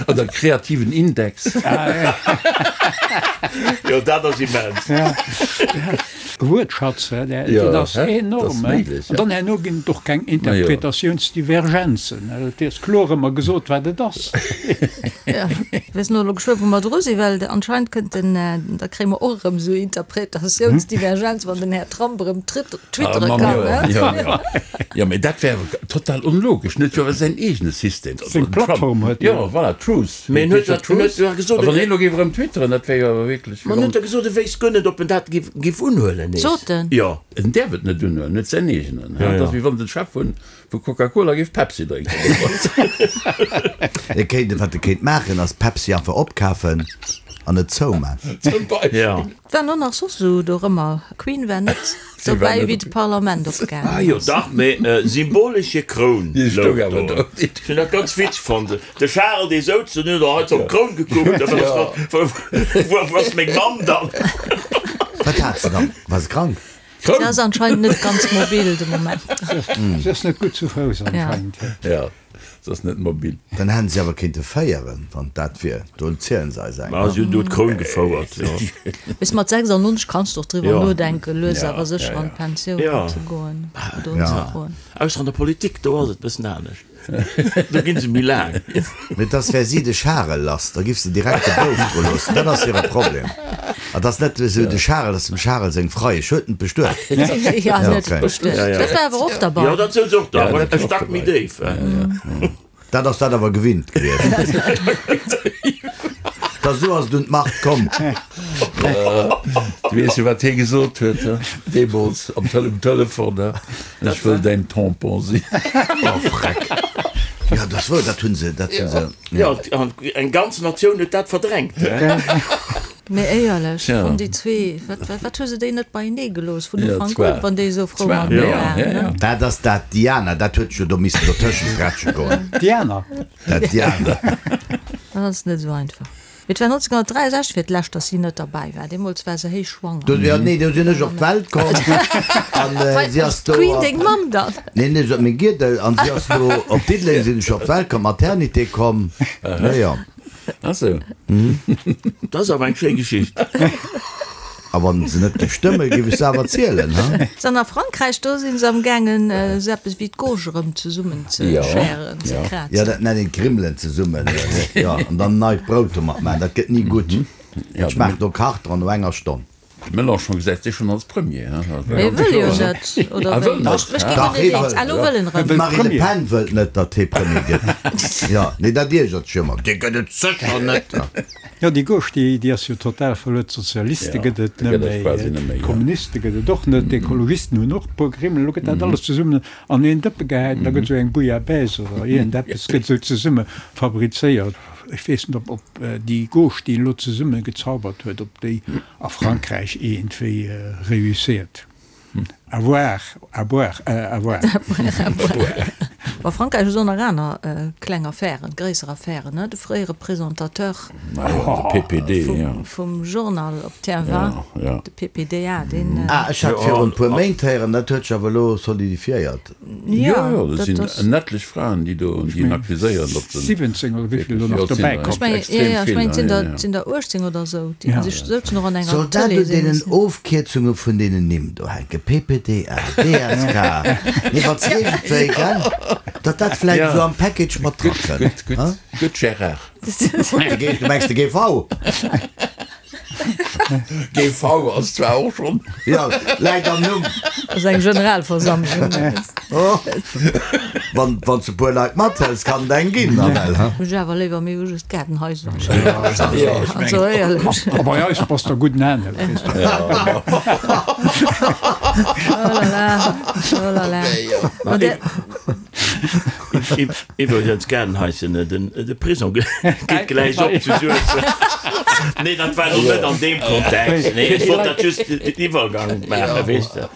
Speaker 3: Oder kreativen Index.
Speaker 2: Jo, dat ass immens.
Speaker 5: Wuertschatz, dat ass enorm. An dann herno ginn et och keng Interpretatiounsdivergenzen. Et ass kloer ëmmer gesot, wat et ass.
Speaker 1: Ech weess net elo geschwë wou mer dru sinn, well anscheinend kënnt den, da kréie mer och erëm esou Interpretatiounsdivergenz, wann den Här Trump erëm twittere kann.
Speaker 3: Jo, mee dat wär total onlogesch. En huet jo awer säin eegene System.
Speaker 5: Seng Plattform huet en.
Speaker 3: Jo, voilà, Truth.
Speaker 2: Mee en huet jo gesot,
Speaker 3: A wann hien elo géif erëm twitteren, dat wär jo awer wierklech.
Speaker 2: Ma en huet jo gesot, e wéisst guer net, ob en dat giff unhuelen nees.
Speaker 1: Sot en?
Speaker 2: Jo.
Speaker 3: En däerf et net unhuelen, en huet säin eegenen. Dat ass wéi wann de Chef vun Coca-Cola géif Pepsi drénken.
Speaker 4: E kéint, wat e kéint maachen, ass Pepsi einfach opkafen an et zouman.
Speaker 3: Zum Beispill.
Speaker 2: Jo.
Speaker 1: Waren och nach soss esou dorëmmer. Queen war net dobäi wéi de Parlament opgaangen
Speaker 2: Ah jo
Speaker 1: ass.
Speaker 2: dach, mee symbolesch hir Kroun
Speaker 3: Déi stoung
Speaker 2: louch
Speaker 3: awer
Speaker 2: do.
Speaker 3: do.
Speaker 2: Ech hunn dat ganz witzeg fonnt. De Charel dee souz do, den huet och hei op d'Kroun gekuckt, wou ass meng Mamm dann?
Speaker 4: Wat hat se dann? War se krank?
Speaker 1: Se ass anscheinend net ganz mobil de Moment.
Speaker 5: Se ass net gutt zu Fouss anscheinend.
Speaker 3: Ja. Se ass net mobil.
Speaker 4: Dann hätten si awer kéinte féieren, wann dat wier. Do zielen se eis eng.
Speaker 2: Ma si hunn do d'Kroun gefouert, jo.
Speaker 1: Bis mat 96 kanns de och driwwer nodenken, lues awer sécher an d'Pensioun ze goen oder unzefroen.
Speaker 2: Ausser an der Politik, do ass et bëssen anescht. Do ginn se méi laang.
Speaker 4: Mee et ass, wär si de Charel lass, da giff se direkt de Bouf dru loossen. Dat ass hire Problem. Et ass net esou de Charel, ass dem Charel seng Freiesch. Huet en bestuet?
Speaker 1: Jo, en huet bestuet. Dat war awer och derbei.
Speaker 2: Jo, dat souz och do, awer e Stack méi déif.
Speaker 4: Dat ass dat awer gewinnt gewiescht. Da sou ass et un d'Macht komm.
Speaker 3: Du weess jo, wat hie gesot huet, he? Deemools am Tele um Telefon, he? Ech wëll däin Tampon sinn.
Speaker 4: Oh Freck! Jo, dat ass wouer, dat hu se, dat hu se.
Speaker 2: Jo, an eng ganz Natioun huet dat verdrängt, he?
Speaker 1: Mee éierlech,
Speaker 3: Tja.
Speaker 1: vun déi zwee, wat, wat, wat hu se déi net beienee gelooss vun
Speaker 3: Ja,
Speaker 1: Ufank
Speaker 3: zwar.
Speaker 1: un, wann déi esou frou
Speaker 3: Zwar,
Speaker 1: matenee
Speaker 3: ja,
Speaker 1: waren,
Speaker 3: ja,
Speaker 1: ne?
Speaker 3: ja.
Speaker 4: Dat ass dat Diana, dat huet jo do missen dotëschent grätsche goen.
Speaker 5: Diana.
Speaker 4: Dat Diana.
Speaker 1: Dat ass net esou einfach. Mee et war 1963 fir d'lescht, datt si net derbäi war. Deemools war se héich schwanger.
Speaker 4: Do, jo, nee, do sinn ech op d'Welt komm an si ass do.
Speaker 1: D'Queen, deng Mamm dann?
Speaker 4: Nee, nee, se huet meng Giedel an si ass do op Diddeleng sinn ech op d'Welt komm, Maternité komm. Jo, jo.
Speaker 3: Ah sou.
Speaker 2: Dat ass awer eng schéi Geschicht.
Speaker 4: A wann se net géif stëmmen, géif ech se awer zielen, ha?
Speaker 1: An a Frankräich, do si se am gaangen, esou eppes wéi d'Gauche erëm zesummen ze schären, ze krazen.
Speaker 4: Jo, dat nennt een d'Grimmelen zesummen, jo, an dann neit Brout domat maachen. Dat gëtt ni gutt. Dat schmaacht no Karton no enger Stonn.
Speaker 3: De Mélenchon gesäit sech schonn als Premier, ha?
Speaker 1: Mee e wëll jo net, oder
Speaker 3: wéi?
Speaker 1: Ech ginn guer net eens. Ah, lo wëll en erëm.
Speaker 4: D'Marine Le Pen wëllt net, datt hie Premier gëtt. Jo, nee, dat iergert sech ëmmer. Dee gëtt et sécher net.
Speaker 5: Jo, déi Gauche, déi, déi ass jo total verluer. D'Sozialiste gëtt et net méi, d'Kommuniste gëtt et och net, d'Ekologisten hunn och e puer Grimmel. Elo gëtt dat alles zesummen an een Dëppe gehäit an da gëtt esou eng Bouillabaisse oder iergendeppes gëtt esou zesumme fabrizéiert. Ech weess net, ob, ob déi Gauche, déi en elo zesumme gezaubert huet, ob déi a Frankräich iergendwéi réussiert. À voir, à boire, à voir.
Speaker 1: À boire. A Frankräich hu se och nach aner kleng Affären, gréisser Affären, ne? De fréiere Presentateur vum Journal op TF1, de PPDA, deen.
Speaker 4: Ah, ech hat virun e puer Méint héieren, dat huet sech awer elo solidifiéiert.
Speaker 3: Jo, jo, dat sinn en etlech Fraen, déi do, déi en accuséieren, datt
Speaker 5: se. 17 oder wéi vill elo nach dobäi kommen.
Speaker 1: Ech mengen, jo, jo, ech mengen, et sinn der, et sinn der 18 oder esou, déi sech souzen och an enger
Speaker 4: Soll dat un deenen Ofkierzunge vun deenen Nimm do hänken? PPDA, DSK, nee, wann s iergendwéi, gell, datt dat vläicht esou am Package mat dra
Speaker 3: kënnt. Gutt, gutt, gutt, Gérard.
Speaker 4: Du mengs de GV?
Speaker 3: GV ass zwar och schonn.
Speaker 4: Jo, läit am Numm.
Speaker 1: Ass eng Generalversammlung.
Speaker 4: Wann wann s de puer Leit mathëls, kann et eng ginn, nawell, ha?
Speaker 1: Ech awer léiwer, mir hu just Gaardenhaiser. Also éierlech.
Speaker 5: A bei eis bass der gutt anescht, weess de.
Speaker 1: Oh la la, oh la la. Ma der.
Speaker 2: Iwwregens, Gaardenhaischen, de Prisong geet gläich op zu Suessem. Nee, dat war elo net an deem Kontext. Nee, ech wollt dat just den Iwwergang maachen, weess de.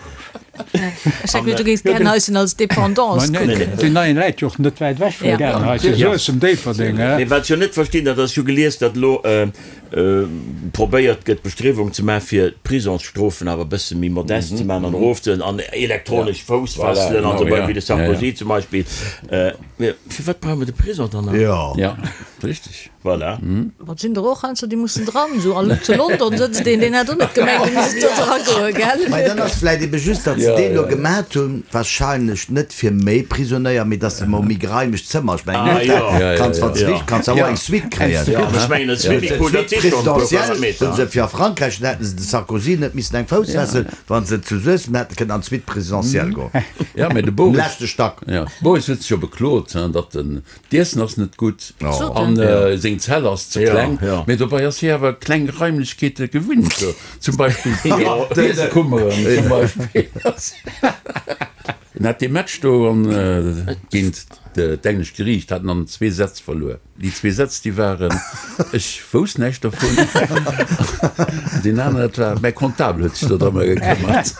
Speaker 1: Ech hat geduecht, du géings d'Gaardenhaischen als Dependance kucken.
Speaker 5: Deen neien läit jo och net wäit ewech vum Gaardenhaischen, Suessem, Déifferdeng.
Speaker 2: Mee wat ech jo net verstinn, dat ass, ech hu gelies, datt elo probéiert gëtt Bestriewung ze maachen, fir d'Prisongsstrofen awer e bësse méi modest ze maachen an erofzehuelen an elektronesch Foussfesselen an esou weider, wéi de Sarkozy zum Beispill. Mee firwat brauche mer de Prisong dann nach?
Speaker 3: Jo, richtig.
Speaker 2: Voilà.
Speaker 1: Ma et sinn der och heiansdo, déi mussen dran. Esou an zu London sëtzt een, deen hätt och net gemengt, e misst do dragoen, gell?
Speaker 4: Mä dann ass vläicht ebe just, datt se deen elo gemat hunn, wahrscheinlech net fir méi Prisonéier, mee dass se mol méi geräimeg Zëmmer, ech mengen en Hotel kanns wann s de wich kanns awer och eng Suite kréien. Suite présidentielle hunn se fir a Frankräich, dann hätten se de Sarkozy net missen eng Foussfessel, wann se zu Suessem hätte kënnen an d'Suite présidentielle goen. Um leschte Stack.
Speaker 3: Boris huet sech jo beklot, datt den d'Iessen ass net gutt an seng Zell ass ze kleng, mee dobei ass hie awer kleng Raimlechkeete gewinnt, zum Beispill d'Iesskummeren zum Beispill. En hat dee Match do géint d'englescht Geriicht hat en an zwee Sätz verluer. Déi zwee Sätz, déi waren, Ech wousst näischt dervun. An deen aneren, dat war, Mäi Comptable huet sech do drëmmer gekëmmert.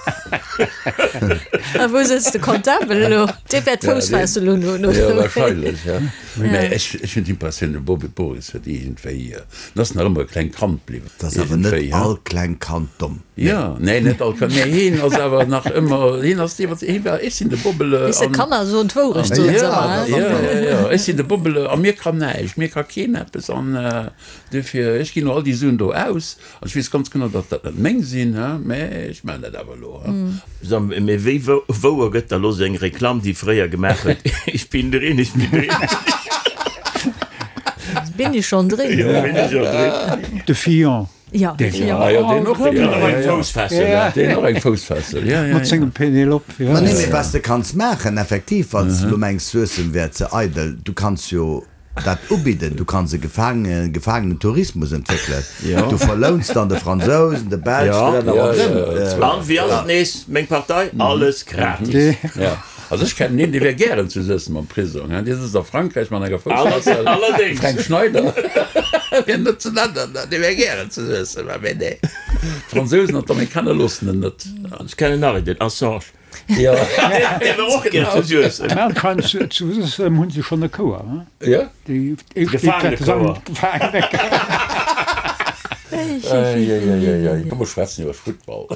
Speaker 1: A wou sëtzt de Comptable elo? Dee wäert d'Foussfessel unhunn, oder?
Speaker 3: Jo, wahrscheinlech, ja. Mä ech, ech hunn d'Impressioun, de Bobby Boris huet iergendwéi, en ass nach ëmmer e klengt Kand bliwwen.
Speaker 4: Et ass awer net all kleng Kand domm.
Speaker 3: Jo, nee, net all Kand, mee hien ass awer nach ëmmer, hien ass dee, wat, hie war, ech sinn de Bobbele.
Speaker 1: Weess de, Kanner soen d'Wourecht, soen se ëmmer,
Speaker 3: hein? Jo, jo, jo, ech sinn de Bobbele a mir kann näischt, mir ka keen eppes an duerfir, ech ginn elo all déi Suen do aus an ech weess ganz genau, datt dat net meng sinn, hein, mä ech maachen dat awer elo, hein.
Speaker 2: So, mee wéi wouer gëtt da lo seng Reklamm, déi fréier gemaach huet, Ich bin drin, ich bin drin?
Speaker 1: Bin ich schon drin?
Speaker 2: Jo, bin ich schon drin.
Speaker 5: De Fillon.
Speaker 1: Ja,
Speaker 3: deen, ja, ja, deen och, deen och eng Foussfessel, ja. Deen och eng Foussfessel, ja, ja.
Speaker 5: Mat sengem Penelope, ja.
Speaker 4: Ma nee, mee was de kanns maachen, effektiv, wann s de elo mengs, Suessem wär ze eidel, du kanns jo dat ubidden, du kanns e Gefaange, Gefaangenentourismus entwéckelen. Du verlouns dann de Fransousen, de Belsch, de Länner ronderëm.
Speaker 2: An wéi ass et nees, meng Partei, alles gratis.
Speaker 3: Ja. Also ech kennen een, dee wär gären zu Suessem am Prisong, hein, dee sëtzt a Frankräich mat enger Foussfessel, de Fränk Schneider, fir net ze nennen, dee wär gären zu Suessem, mä nee, d'Fransousen an d'Amerikaner loossen en net.
Speaker 2: Ech kennen nach een, den Assange,
Speaker 3: dee
Speaker 2: wär och gär zu Suessem.
Speaker 5: Mä anscheinend zu Suessem hu se schonn e Chouer, hein?
Speaker 3: Jo.
Speaker 5: Déi éischt Gefaangenechouer.
Speaker 3: Eieieiei. Komm mer schwätzen iwwer Futtball.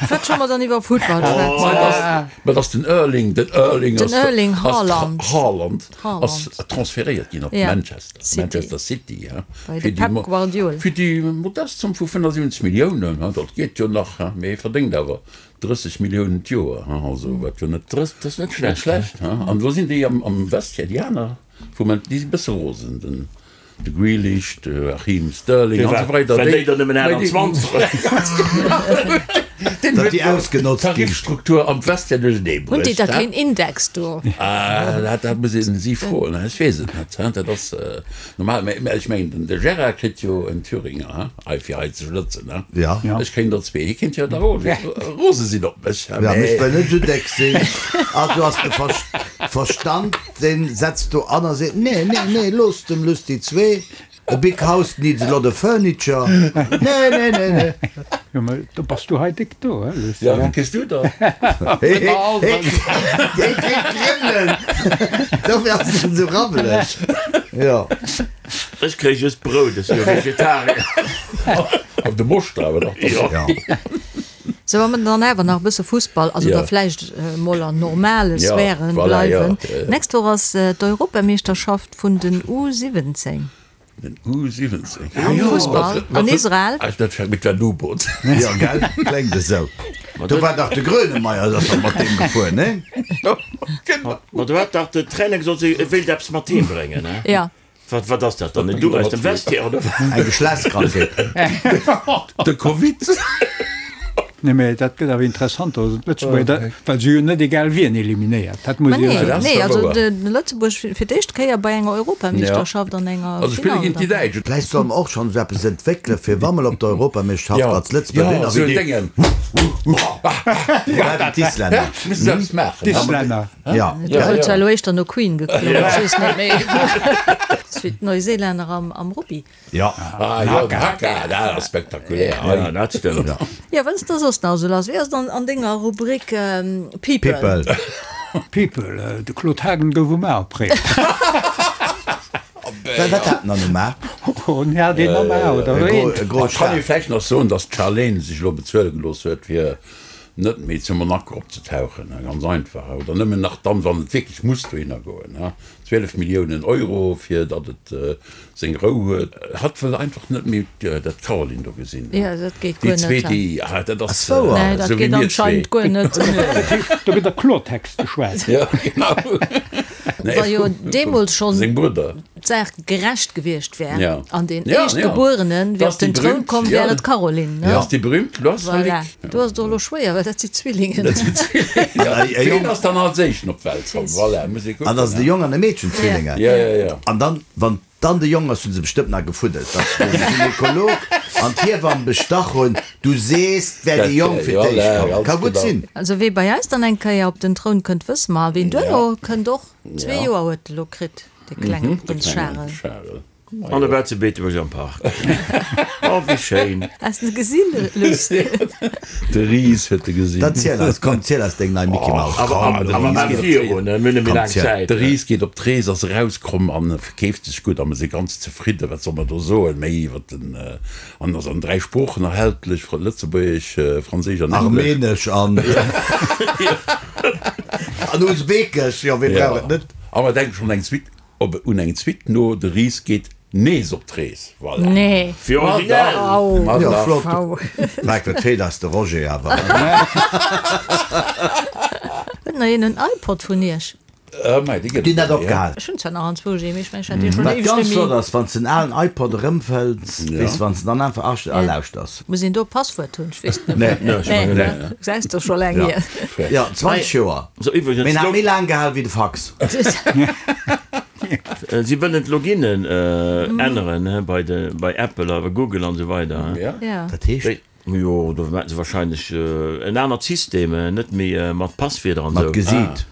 Speaker 1: Wat solle mer dann iwwer Futtball schwätzen?
Speaker 3: Ma dass den Erling, den Erling
Speaker 1: ass, den Erling Haaland,
Speaker 3: Haaland ass transferéiert ginn op Manchester, Manchester City,
Speaker 1: he, bei de Pep Guardiola.
Speaker 3: Fir déi modest Zomm vu 75 Milliounen, he, dat geet jo nach, he, mee hie verdéngt awer 30 Milliounen d'Joer, he, also wat jo net,
Speaker 2: dat ass net schlecht,
Speaker 3: he. An elo sinn déi am Vestiaire, déi aner vum, déi si bësse rosen, den. De Grealish, de Raheem Sterling an esou weider.
Speaker 2: Well déi der nëmmen 28
Speaker 3: Deen huet déi ausgenotzt ginn. D'Tarifstruktur am Vestiaire duerchernee
Speaker 1: bruecht. Hunn déi da keen Index do?
Speaker 3: Ah, dat muss een si froen, ech weess et net. Dat ass normal, mä ech mengen, de Gérard kritt jo en Thüringer, he, hei fir hei ze schlëtzen, he.
Speaker 4: Ja.
Speaker 3: Ech kréien der zwee. Hie kéint jo da rose sinn op mech,
Speaker 4: he, mä. Ja, ech wëll net esou déck sinn. Also ass de Verstand. Deen setzt do an a seet, Nee, nee, nee, looss dem Luss déi zwee, a big house needs a lot of furniture, nee, nee, nee, nee.
Speaker 5: Jo, mä do bass du hei déck do, he Luss?
Speaker 3: Jo, wéi kriss du der?
Speaker 4: Hee, hee, hee kritt Kribbelen, dofir ass en esou rabbeleg, jo.
Speaker 2: Ech kréie just Brout, ech si jo Vegetarier.
Speaker 3: Op de Moschter awer nach.
Speaker 2: Jo.
Speaker 1: Sou, wa mer dann awer nach e bësse Fussball, also da vläicht emol an normale Sphären bleiwen. D'nächst Woch ass d'Europameeschterschaft vun den U 17.
Speaker 3: Den U 17?
Speaker 1: Am Fussball an Israel.
Speaker 3: Dat fänkt mit der U-Boot.
Speaker 4: Jo, gell, kléngt esou. Do war dach de Grönemeyer, ass dach mat deem gefuer, nee?
Speaker 2: Ma do hat dach de Trainer gesot, e wéilt eppes mat heem bréngen, ne?
Speaker 1: Jo.
Speaker 2: Wat, wat ass dat dann? En Duch aus dem Vestiaire oder wat?
Speaker 4: Eng Geschlechtskrankheet.
Speaker 3: De Covid.
Speaker 5: Nee, mä dat gëtt awer interessant, also d'Lëtzebuerger, well se jo net egal wien eliminéiert. Dat muss
Speaker 1: Ma
Speaker 5: ee jo
Speaker 1: nee,
Speaker 5: soen.
Speaker 1: nee, also de Lëtzebuerg fir d'éischt Kéier bei enger Europameeschterschaft an enger
Speaker 3: Also spille
Speaker 1: Finall
Speaker 3: géint déi
Speaker 1: dann.
Speaker 3: Däitsch.
Speaker 4: Vläicht solle mer och schonn esou eppes entwéckele fir wa mol op der Europameeschterschaft als Lëtzebuerg
Speaker 3: Jo,
Speaker 4: sinn,
Speaker 3: esou
Speaker 4: wéi
Speaker 3: en
Speaker 4: déi
Speaker 3: Déngen.
Speaker 4: wéi d'Islänner.
Speaker 3: Misst se eppes maachen.
Speaker 5: D'Islänner.
Speaker 4: Ja.
Speaker 1: Do huet zwar elo éischter no Queen geklongen, ech weess net méi. Ass wéi d'Neuseelänner am Rugby.
Speaker 4: Ja.
Speaker 3: Ah jo, den Haka, dat ass spektakulär.
Speaker 2: Ja, dat stëmmt.
Speaker 1: Jo, wat ass da soss nach esou lass? Wéi ass et an denger Rubrik People?
Speaker 4: People.
Speaker 5: People, de Claude Haagen gouf um A opréiert.
Speaker 4: Wat hat en dann um A?
Speaker 5: Oh, en hat een am A, oder
Speaker 4: E
Speaker 5: een?
Speaker 4: gro
Speaker 3: Ech kann ee vläicht nach soen, datt d'Charlene sech elo bezuele gelooss huet, fir net méi zu Monaco opzetauchen, ganz einfach, oder nëmmen nach dann, wann et wierklech muss dohinner goen, 12 Milliounen Euro, fir datt et seng Rou huet. Hatt wëll einfach net méi dat Caroline do gesinn.
Speaker 1: Jo, dat geet guer
Speaker 3: Déi
Speaker 1: net.
Speaker 3: zwee, déi, ah, dat ass
Speaker 4: Ass wouer?
Speaker 1: Nee, dat
Speaker 3: esou wéi
Speaker 1: geet
Speaker 3: mir zwee.
Speaker 1: anscheinend guer net.
Speaker 5: Do gëtt a Klortext geschwat.
Speaker 3: Jo, genau. Nee,
Speaker 1: Wa jo deemools schonn
Speaker 3: seng Brudder.
Speaker 1: d'Saach gerecht gewiescht wär
Speaker 3: Ja.
Speaker 1: an deen
Speaker 3: Ja, ja.
Speaker 1: Éischtgebuerene wär
Speaker 3: Das
Speaker 1: op den
Speaker 3: die
Speaker 1: Troun
Speaker 3: berühmt,
Speaker 1: komm,
Speaker 3: ja.
Speaker 1: wär et d'Caroline, ne?
Speaker 3: Das die berühmt
Speaker 1: Voilà.
Speaker 3: Loisalik.
Speaker 1: Do ass et och elo schwéier, well dat si Zwillingen.
Speaker 3: Dat sinn Zwillingen.
Speaker 4: Ja, e
Speaker 3: Ween
Speaker 4: Jong.
Speaker 3: ass dann als éischten op d'Welt komm? Voilà, muss ee kucken.
Speaker 4: An dat ass e Jong an e Meedchen, Zwillinge.
Speaker 3: Ja, ja, ja.
Speaker 4: An dann, wann dann de Jong ass, hu se bestëmmt nach gefuddelt, datt de Gynekolog an d'Hiewamm bestach hunn, Du sees, 't wär de Jong fir d'éischt komm. Ka gutt sinn.
Speaker 1: Also wee bei eis dann eng Kéier op den Troun kënnt, wësse mer. A ween duerno kënnt och. Zwee Joer huet e lo kritt, de klenge Prënz Charel.
Speaker 2: An e war zu Beetebuerg am Park. Oh, wéi schéin!
Speaker 1: Has de gesinn, Luss?
Speaker 3: De Ris huet e gesinn.
Speaker 4: Dann ziel eis, komm, ziel eis deng nei Micky Maus.
Speaker 2: Awer
Speaker 4: Komm,
Speaker 2: maach virun, mir hunn net méi laang Zäit.
Speaker 3: De Ris geet op d'Rees, ass erauskomm an verkeeft sech gutt a mir si ganz zefridden. Wat soll mer do soen méi iwwer den. An ass an 3 Sproochen erhältlech, Lëtzebuergesch, Franséisch an Englesch.
Speaker 4: Armenesch an an Usbekesch, jo, wee brauch et net?
Speaker 3: A mer denke schonn eng Suite, op un eng Suite no, De Ris geet nees op d'Rees. Voilà.
Speaker 1: Nee.
Speaker 2: Fir originell.
Speaker 3: Ma
Speaker 4: Jo,
Speaker 3: dach.
Speaker 4: flott. Mike, wat feelt eis de Roger awer.
Speaker 1: Huet nach een en iPod vun iech?
Speaker 4: Déi net opgehal.
Speaker 1: Ech hunn zwar nach anzwousch ee, mee ech mengen, ech hat dee schonn
Speaker 4: Wat
Speaker 1: éiweg
Speaker 4: ganz
Speaker 1: net
Speaker 4: flott
Speaker 1: méi.
Speaker 4: ass, wann s den alen iPod erëmfënns, weess de, wann s de dann einfach asch a lauschters.
Speaker 1: Muss een do e Passwuert hunn? Ech weess et net.
Speaker 4: Nee.
Speaker 1: Nee,
Speaker 2: Nee, ech mengen net.
Speaker 1: Gesäis de scho laang hier.
Speaker 4: Jo, 20 Joer.
Speaker 2: So iwwregens,
Speaker 4: Mee en hat méi laang gehal wéi de Fax.
Speaker 2: Si wëllen d'Loginen änneren bei de, bei Apple a bei Google an esou weider.
Speaker 1: Ja.
Speaker 4: Dat heescht?
Speaker 2: Jo, do maachen se wahrscheinlech en anert System, net méi mat Passwierder an
Speaker 4: Mat
Speaker 2: esou.
Speaker 4: Gesiit.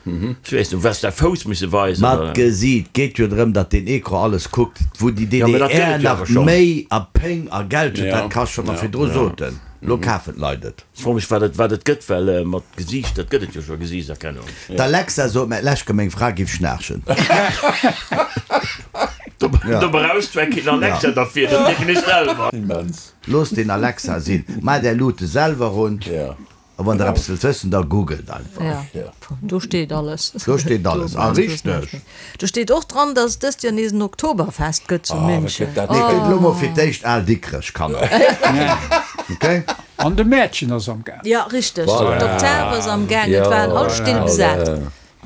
Speaker 2: Ech weess net, wes de Fouss musse weisen,
Speaker 4: Mat
Speaker 2: oder?
Speaker 4: Gesiit. Geet jo drëm, datt deen Ecran alles kuckt. Wou déi
Speaker 2: Ja, mä dat gëtt
Speaker 4: DDR
Speaker 2: et jo
Speaker 4: nach
Speaker 2: awer schonn.
Speaker 4: Méi a Péng a Geld huet, dat kascht, wat mer virdru soten. Lo kafen d'Leit et.
Speaker 2: Ech froe mech, wat et, wat et gëtt, well mat Gesiicht, dat gëtt et jo scho, Gesiichtserkennung.
Speaker 4: D'Alexa sot mer d'lescht Kéier, meng Fra giff schnaarchen.
Speaker 2: Do brauchs zwar keen Alexa derfir, dat mierken ech selwer.
Speaker 3: Immens.
Speaker 4: Loosst den Alexa sinn. Maacht är Luute selwer un. A wann der eppes wëllt wëssen, da googelt einfach.
Speaker 1: Jo, do steet alles.
Speaker 4: Do steet alles, a richteg.
Speaker 1: Do steet och dran, datt et dëst Joer nees en Oktoberfest gëtt zu München.
Speaker 4: Nee, gëtt elo mol fir d'éischt al Dikrech, Kanner. Ok?
Speaker 5: An de Mäertchen ass am Gaang.
Speaker 1: Jo, richteg. D'Oktav ass am Gaang. Et waren all Still besat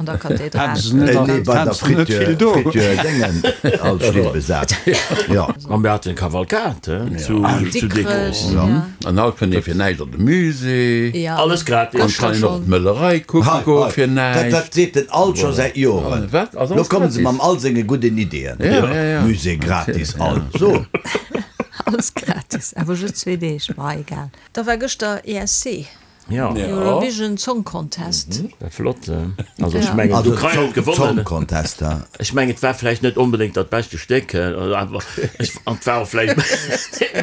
Speaker 1: an der Kathedral.
Speaker 4: Nee, bei der Frituur, Frituur Déngen, all Still besat. Jo.
Speaker 2: A mir haten Kavalkad zu Dikrech.
Speaker 3: An haut kënnt ee fir näischt an de Musée.
Speaker 2: Alles gratis.
Speaker 3: An kann een och d'Möllerei kucke goe fir näischt.
Speaker 4: Dat seet den alt scho säit Joren. Lo komme se mam all senge gudden Ideeën. Musée gratis, all. So.
Speaker 1: Alles gratis, awer just zwee Deeg, ma egal. Da war gëschter ESC.
Speaker 2: Ja.
Speaker 1: Eurovision Song Contest.
Speaker 2: War flott. Also ech mengen d'Ukrain huet gewonnen.
Speaker 4: Song Contest, ja.
Speaker 2: Ech mengen et war vläicht net onbedéngt dat beschte Stéck, awer ech an et war och vläicht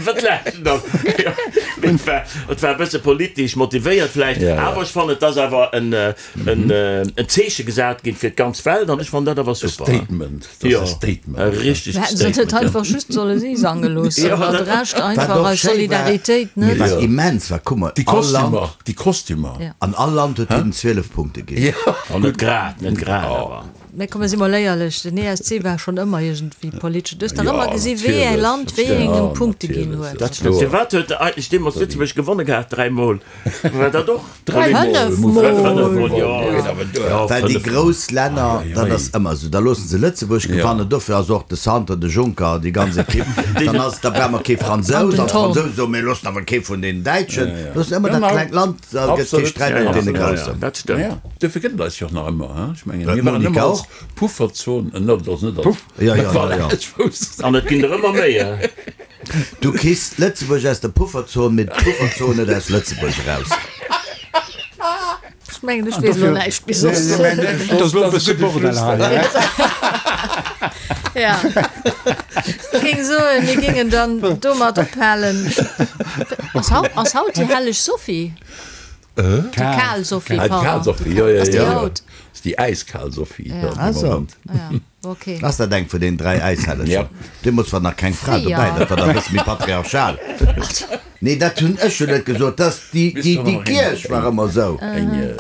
Speaker 2: wat laachs du dann? Jo, mee et war et war e bësse politesch motivéiert vläicht, awer ech fannen et ass awer en en en Zeeche gesat ginn fir d'ganz Welt an ech fannen dat awer super.
Speaker 3: E Statement. Dat ass e Statement.
Speaker 2: E richtegt
Speaker 1: Hätten se net
Speaker 2: Statement,
Speaker 1: einfach just solle si sange loossen,
Speaker 2: Jo,
Speaker 1: an de
Speaker 2: dat.
Speaker 1: Rescht
Speaker 4: Wat
Speaker 1: einfach
Speaker 4: och
Speaker 1: aus
Speaker 4: schéi war,
Speaker 1: Solidaritéit,
Speaker 4: mee
Speaker 1: net?
Speaker 4: wat immens war, kuck mol,
Speaker 3: Déi
Speaker 4: all Land.
Speaker 3: Kostümer, déi Kostümer.
Speaker 1: Ja.
Speaker 4: An all Land huet hinnen 12 Punkte ginn.
Speaker 3: Jo.
Speaker 2: Oh, net grad, net grad, awer.
Speaker 1: Mä komm, mir si mol éierlech, den ESC war schonn ëmmer iergendwéi politesch. Du hues dach
Speaker 3: Jo,
Speaker 1: ëmmer gesi wéi ee
Speaker 3: natierlech,
Speaker 1: Land wéi
Speaker 3: ja,
Speaker 1: engem Punkte ginn
Speaker 3: natierlech,
Speaker 1: huet.
Speaker 3: dat ass kloer.
Speaker 2: Firwat huet eigentlech deemools Lëtzebuerg gewonne gehat, dräimol? War dat och?
Speaker 1: Fënnefmol.
Speaker 4: Well déi grouss Länner, dat ass ëmmer esou, da loosse se Lëtzebuerg gewannen, dofir ass och de Santer, de Juncker, déi ganz Ekipp, dann ass, da brauche mer kee Fransous, an d'Fransousen soen, mir loossen awer kee vun deenen Däitschen, loossen ëmmer dat klengt Land, da gëtt kee Sträit mat deene Groussen.
Speaker 2: Dat stëmmt.
Speaker 3: Dofir gëtt et eis jo och nach ëmmer, ech mengen, mir waren ëmmer als Pufferzon, dat ass net als,
Speaker 2: An et ginn der ëmmer méi.
Speaker 4: Du kriss Lëtzebuerg aus der Pufferzon, mee d'Pufferzon net aus Lëtzebuerg eraus.
Speaker 1: Ech mengen, ech weess elo näischt méi soss.
Speaker 5: Et ass elo e bësse Bordell hei.
Speaker 1: Ja. Ech géing soen, mir géingen dann domat ophalen. Ass haut, ass haut déi helleg Sophie? Déi kal Sophie,
Speaker 3: pardon. Déi kal Sophie, jo, jo,
Speaker 1: Ass déi
Speaker 3: jo.
Speaker 1: haut?
Speaker 3: Ass déi äiskal Sophie, jo,
Speaker 4: Ah
Speaker 3: de
Speaker 4: so.
Speaker 3: Moment.
Speaker 1: Ja. Okay.
Speaker 4: Ass dat eng vun den 3 Äishellegen?
Speaker 3: Ja.
Speaker 4: Deemools war nach keng Fra dobäi, dat war da e bësse méi patriarchal. Nee, dat hunn ech jo net gesot, dass déi, déi, déi Kierch war ëmmer esou.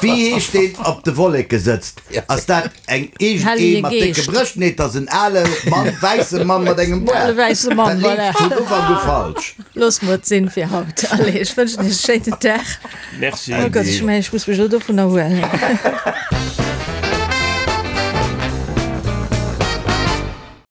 Speaker 4: Wéi heescht deen op de Wolleke sëtzt? Ass dat eng iergend ee mat décke Brëscht? Nee, et ass en ale Mann, wäisse Mann mat engem
Speaker 1: Ale
Speaker 4: Boart.
Speaker 1: wäisse Mann,
Speaker 4: Dat
Speaker 1: voilà.
Speaker 4: leeft vun Ufank u falsch.
Speaker 1: Loosse mer et sinn fir haut. Allez, ech wënschen iech e schéinen Dag.
Speaker 2: Merci.
Speaker 1: Oh Gott, ech mengen, ech muss mech elo dovun erhuelen.